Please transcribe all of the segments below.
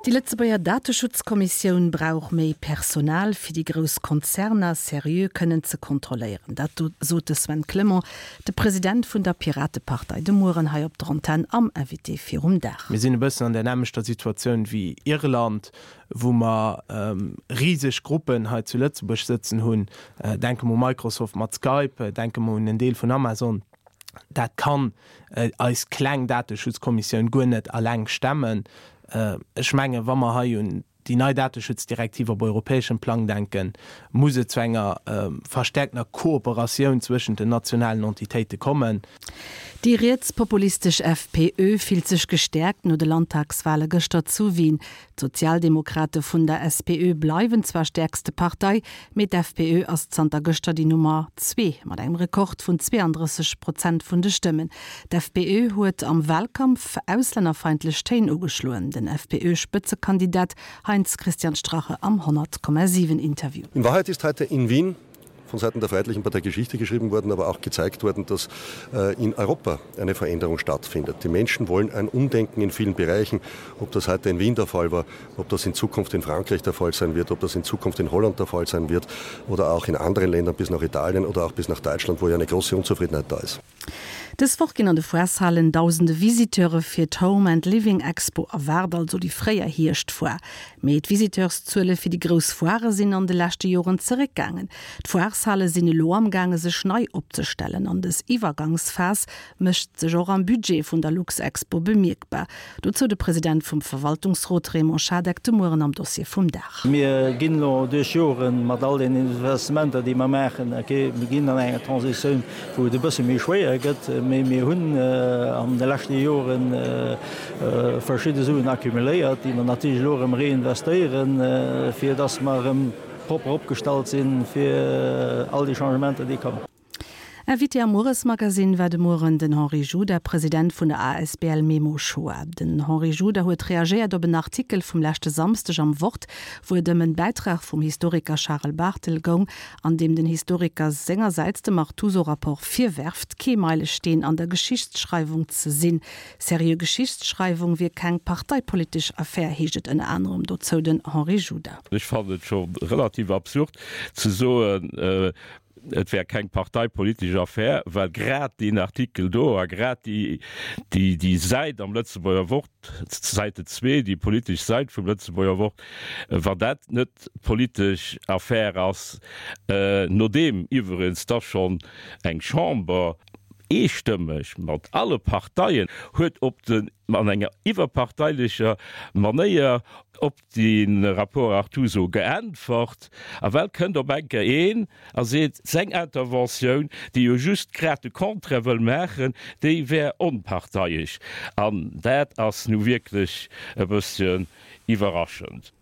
Déi Lëtzebuerger Dateschutzkommissioun brauch méi Personal, fir déi grouss Konzerner seriö kënnen ze kontrolléieren. Dat sot de Sven Clement, de President vun der Piratepartei, de Mueren hei op der Antenn am Invité virum Dag. Mir sinn e bëssen an där nämmlechter Situatioun wéi Irland, wou mer riseg Gruppen hei zu Lëtzebuerg sëtzen hunn. Denke mer u Microsoft mat Skype, denke mer un en Deel vun Amazon. Dat kann eis kleng Dateschutzkommissioun guer net alleng stemmen. Ech mengen, wa mer hei un déi nei Dateschutzdirektiv op europäeschem Plang denken, muss et zu enger verstärkter Kooperatioun zwëschent den nationalen Entitéite kommen. Déi rietspopulistesch FPÖ fillt sech gestäerkt no de Landtagswale gëschter zu Wien. D'Sozialdemokrate vun der SPÖ bleiwen zwar stäerkste Partei, mee d'FPÖ ass zanter gëschter déi Nummer zwee mat engem Rekord vun 32 Prozent vun de Stëmmen. D'FPÖ huet am Walkampf auslännerfeindlech Téin ugeschloen. Den FPÖ-Spëtzekandidat Heinz-Christian Strache am 100,7 Interview. In Wahrheit ist heute in Wien von Seiten der Freiheitlichen Partei Geschichte geschrieben worden, aber auch gezeigt worden, dass äh, in Europa eine Veränderung stattfindet. Die Menschen wollen ein Umdenken in vielen Bereichen, ob das heute in Wien der Fall war, ob das in Zukunft in Frankreich der Fall sein wird, ob das in Zukunft in Holland der Fall sein wird oder auch in anderen Ländern bis nach Italien oder auch bis nach Deutschland, wo ja eine große Unzufriedenheit da ist. Dës Woch ginn an de Foireshalen dausende Visiteure fir d'Home and Living Expo erwaart, also déi fréier Hierschtfoire. Mee d'Visiteurszuele fir déi grouss Foirë sinn an de leschte Joren zeréckgaangen. D'Foireshale sinn elo amgaange sech nei opzestellen an dës Iwwergangsphas mécht sech och am Budget vun der Luxexpo bemierkbar. Dozou de President vum Verwaltungsrot Raymond Schadeck de Mueren am Dossier vum Dag. Mir ginn elo duerch Joren mat all den Investissementer, déi mer maachen, okay, mir ginn an enger Transitioun, wou et e bësse méi schwéier gëtt, mee mir hunn an de leschte Jore verschidde Suen accumuléiert, déi mer natierlech elo erëm reinvestéieren, fir dass mer erëm propper opgestallt si fir all déi Changementer, déi kommen. Invité am Mueresmagazine war de Mueren den Henri Juda, President vun der asbl Memo Shoah. Den Henri Juda huet reagéiert op en Artikel vum leschte Samsdeg am Wort, wou et ëm en Bäitrag vum Historiker Charel Barthel goung, an deem den Historiker sengersäits dem Artuso-Rapport virwerft, kee Meilesteen an der Geschichtsschreiwung ze sinn. Seriö Geschichtsschreiwung wier keng parteipolitesch Affär, heescht et ënner anerem dozou den Henri Juda. Ech fannen et scho relativ absurd ze soen, et wär keng parteipolitesch Affär, well grad deen Artikel do a grad déi Säit am Lëtzebuerger Wort, d'Seite zwee, déi politesch Säit vum Lëtzebuerger Wort, wann dat net politesch Affär ass, nodeem iwwerens da schonn eng Chamber eestëmmeg mat alle Parteien huet op den, an enger iwwerparteilicher Manéier op de Rapport Artuso geäntwert, a well kënnt op eng Kéier een a seet, seng Interventioun, déi jo just grad de Contraire wëll maachen, déi wär onparteiesch. An dat ass nu wierklech e bësschen iwwerraschend.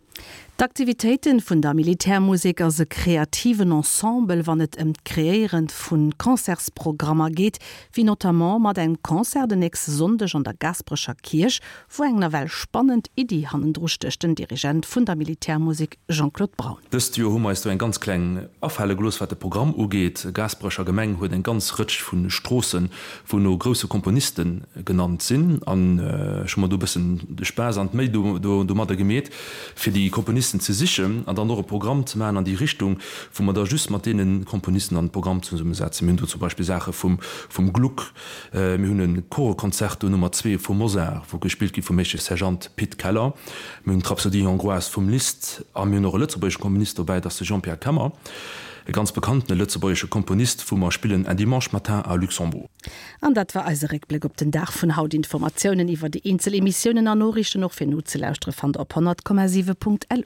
D'Aktivitéiten vun der Militärmusek ass e kreativen Ensemble, wann et ëm d'Kreéiere vu Concertsprogrammer geet, wéi notamment mat engem Concert den nächste Sonndeg an der Gaasperecher Kierch, wou eng nawell spannend Iddi hannendru stécht, den Dirigent vun der Militärmusek Jean-Claude Braun. Dëst Joer hu mer eis do eng ganz kleng afale gelooss, wat de Programm ugeet. Gaasperecher Gemeng huet eng ganz Rëtsch vu Stroossen, wou no grousse Komponiste genannt sinn. An ech hu mer do e bëssen de Spaass an d'Méi domadder gemeet, fir déi Komponisten ze sichen an dann och e Programm ze maachen an déi Richtung, wou mer da just mat deene Komponisten dann de Programm zesummesetzen. Mir hunn do zum Beispill Saache vum Gluck, Mir hunn e Choreconcerto Nummer 2 vum Mozart, wou gespillt gi vum Meeschtesch Sergeant Pit Keller. Mir hunn d'Rhapsodie hongroise vum Liszt a mir hunn och e lëtzebuergesche Komponist dobäi, dat ass de Jean-Pierre Kemmer, e ganz bekanntene lëtzebuergesche Komponist, wou mer spillen Un dimanche matin à Luxembourg. An dat war eise Réckbléck op den Dag vun haut. Informatiounen iwwer déi eenzel Emissiounen an Noriichten och fir nozelauschteren fannt der op 100,7.lu.